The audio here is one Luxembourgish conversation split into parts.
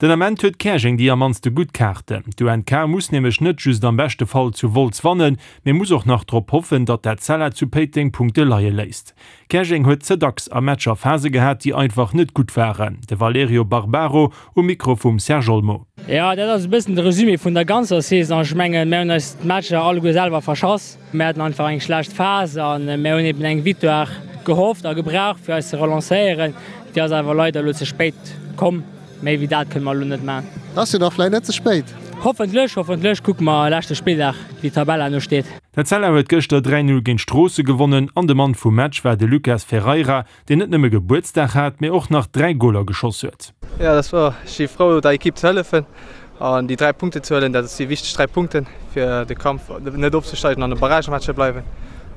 Den Ament huet Käerjeng déi am mannste gutt Kaarten. D'UNK muss nämlech net just am beschte Fall zu Wolz wannen, mee muss och nach drop hoffen, datt d'Etzella zu Péiteng Punkte leie léisst. Käerjeng huet ze dacks a Matcher Phase gehat, déi einfach net gutt waren. De Valerio Barbaro um Mikro vum Serge Olmo. Jo, dat ass e bëssen de Resumé vun der ganzer Saison. Ech mengen, mir hunn eis d'Matcher alleguer selwer verschass. Mir haten einfach eng schlecht Phas a mir hunn eben eng Victoire gehofft a gebraucht, fir eis ze relancéieren. Déi ass awer leider elo ze spéit komm. Méi wéi dat kënne mer elo net maachen. Ass jo da vläit net ze spéit. Hoffentlech, hoffentlech. Kucke mer leschte Spilldag, wéi d'Tabell herno steet. D'Etzella huet gëschter 3, 0 géint Stroosse gewonnen an de Mann vum Match war de Lucas Ferreira, deen net nëmme Gebuertsdag hat, mee och nach 3 Goler geschoss huet. Jo, dat war. Ech si frou der Ekipp ze hëllefen an déi 3 Punkten ze huelen. Dat si wichteg 3 Punkten fir de Kampf net ofzesteigen an de Barragematch ze bleiwen.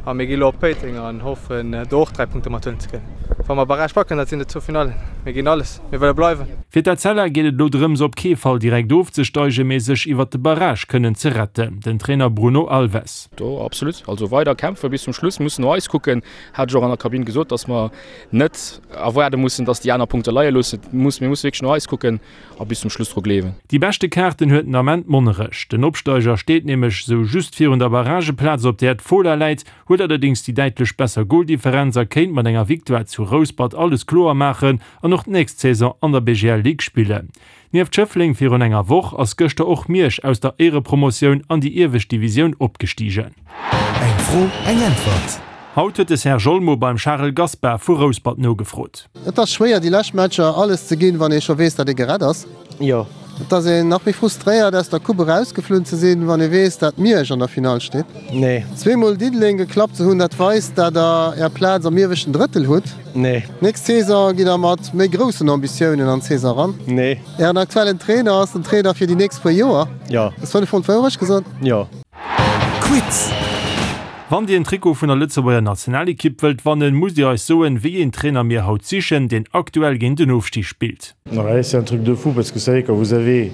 A mir gi lo op Péiteng an hoffen do och 3 Punkte mathuelen ze kënnen. Wa mer Barrage packen, dat sinn et zwou Finallen. Mir ginn alles, mir wëlle bleiwen. Fir d'Etzella geet et elo drëms op kee Fall direkt ofzesteigen, mee sech iwwert de Barrage kënnen ze retten. Den Trainer Bruno Alves. Do absolut, also weider kämpfen bis zum Schluss, mussen no eis kucken, hat ech och an der Kabinn gesot, dass mer net erwaarde mussen, dass déi aner Punkte leie loossen. Mir musse wierklech no eis kucken a bis zum Schluss dru gleewen. Déi beschte Kaarten huet den Ament Monnerech. Den Opsteiger steet nämlech sou just virun der Barrageplaz, op där d'Fola läit, huet allerdéngs déi däitlech besser Goldifferenz a kéint mat enger Victoire zu Rouspert alles kloer maachen an och d'nächst Saison an der BGL Ligue spillen. Nieft Schëffleng virun enger Woch ass gëschter och Miersch aus der Éierepromotioun an déi iewescht Divisioun opgestigen. Eng Fro, eng Äntwert. Haut huet de Serge Olmo beim Charel Gaspar vu Rouspert nogefrot. Et ass schwéier déi lescht Matcher alles ze ginn, wann ee scho weess, datt ee gerett ass. Jo. Et ass een nach méi frustréiert aus der Coupe erausgeflunn ze sinn, wann ee weess, datt Miersch an der Finall steet. Nee. Zweemol Diddeleng geklappt ze hunn, dat weist, datt der är Plaz am ieweschten Drëttel hutt. Nee. Nächst Saison gitt der mat méi groussen Ambitiounen an d'Saison eran. Nee. Ären aktuellen Trainer ass den Trainer fir déi nächst puer Joer. Jo. Ass 5 mol d'Wourecht gesot? Jo. Quiz! Wann Dir en Trikot vun der Lëtzebuerger Nationalekipp wëllt wannen, musst Dir eis soen, wéi een Trainer mir haut sichen, deen aktuell géint den Ofstig spillt. Ouais, c'est un truc de fou parce que vous savez quand vous avez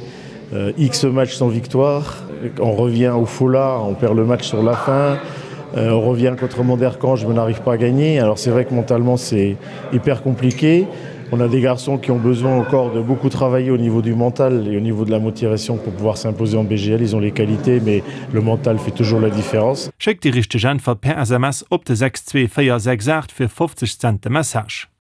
euh, X matchs sans victoire, on revient au Fola, on perd le match sur la fin, euh, on revient contre Monderkange, mais on n'arrive pas à gagner. Alors c'est vrai que mentalement c'est hyper compliqué. On a des garçons qui ont besoin encore de beaucoup travailler au niveau du mental et au niveau de la motivation pour pouvoir s'imposer en BGL. Ils ont les qualités, mais le mental fait toujours la différence. Schéckt déi richteg Äntwert per SMS op de 62468 fir 50 Cent de Message.